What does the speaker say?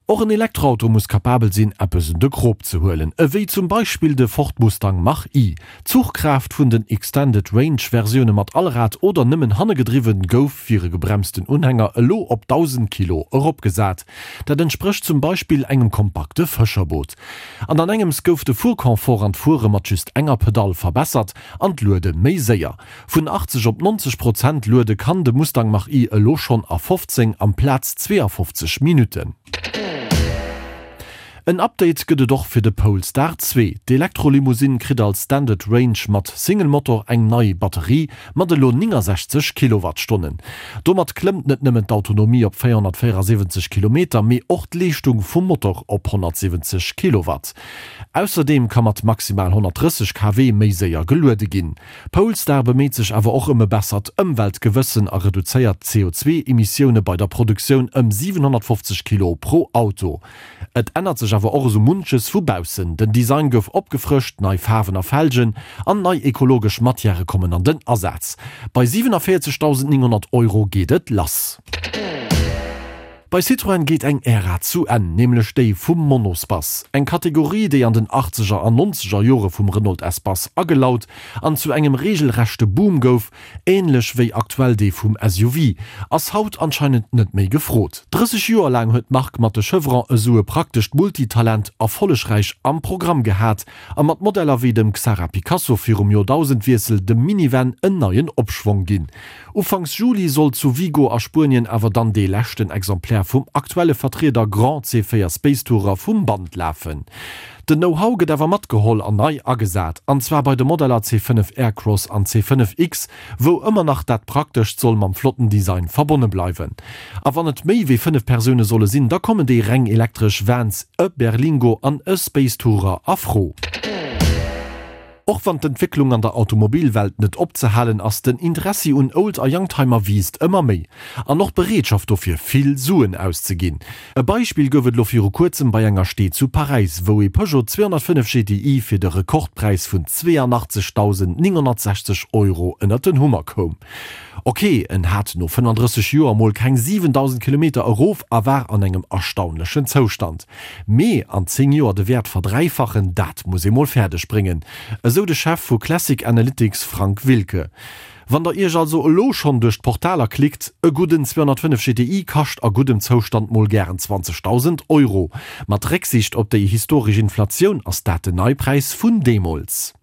Och en Elektroauto muss kapabel sinn, eppes un de Krop ze huelen, ewéi zum Beispill de Ford Mustang Mach-E. D'Zuchkraaft vun den Extended Range Versioune mat Allrad oder nëmmen hanne gedriwwen gouf fir e gebremsten Unhänger elo op 1.000 Kilo eropgesat. Dat entsprécht zum Beispill engem kompakte Fëscherboot. An an engems gouf de Fuerconfort an d'Fuere mat just enger Pedall verbessert an d'Luede méi séier. Vun 80 op 90 Prozent luede kann de Mustang Mach-E elo schonn a 15 amplaz 52 Minutten. En Update gëtt et och fir de Polestar 2. D'Elektrolimousine kritt als Standard Range mat Single-Motor eng nei Batterie mat elo 69 Kilowattstonnen. Domat klëmmt net nëmmen d'Autonomie op 474 Kilometer, mee och d'Leeschtung vum Motor op 170 Kilowatt. Ausserdeem ka mat maximal 130 kW méi séier geluede ginn. Polestar beméit sech awer och ëm e bessert Ëmweltgewëssen a reduzéiert d'CO2-Emissioune bei der Produktioun ëm 750 Kilo pro Auto. Et ännert sech awer och esou munches vu baussen, den Design gouf opgefrëscht, nei Faarwen a Felgen an nei ekologesch Matièrë kommen an den Asaz. Bei 47.900 Euro geet et lass. Bei Citroën geet eng Ära zu Enn, nämlech déi vum Monospace. Eng Kategorie, déi an den achtzeger an nonzeger Jore vum Renault Espace agelaut an zu engem reegelrechte Boom gouf, änlech wéi aktuell dee vum SUV, ass haut anscheinend net méi gefrot. 30 Joer laang huet d'Mark mat de Chevron esou e praktescht Multitalent erfollegräich am Programm gehat a mat Modeller wéi dem Xsara Picasso virum Joerdausendwiessel dem Minivan en neien Opschwong ginn. Ufanks Juli soll zu Vigo a Spuenien awer dann dee leschten Exemplaire vum aktuelle Vertrieder Grand C4 SpaceTourer vum Band lafen. Den Know-how gëtt awer matgeholl an nei agesat, an zwar bei de Modeller C5 Aircross an C5 X, wou ëmmer nach dat Praktescht soll mam flotten Design verbonne bleiwen. A wann et méi wéi 5 Persoune solle sinn, da kommen déi reng elektresch Vans, e Berlingo an e SpaceTourer a Fro. Och wann d'Entwécklung an der Automobilwelt net opzehalen ass, den Interessi un Old a Youngtimer wiisst ëmmer méi. An och d'Bereetschaft dofir, vill Suen auszeginn. E Beispill gouf et elo viru kuerzem bei enger Stee zu Paräis, wou ee Peugeot 205 GTI fir de Rekordpräis vun 82.960 Euro ënnert den Hummer koum. Ok, en hat no 35 Joer mol keng 7.000 Kilometer erof a war an engem erstaunlechen Zoustand. Mee an 10 Joer de Wäert verdräifachen, dat muss ee mol fäerdeg bréngen, esou de Chef vu Classic Analytics Frank Wilke. Wann der iech also elo schonn duerch d'Portaler klickt, e gudden 205 GTI kascht a guddem Zoustand mol gären 20.000 Euro. Mat Récksiicht op déi historesch Inflatioun ass dat den Neipräis vun deemools.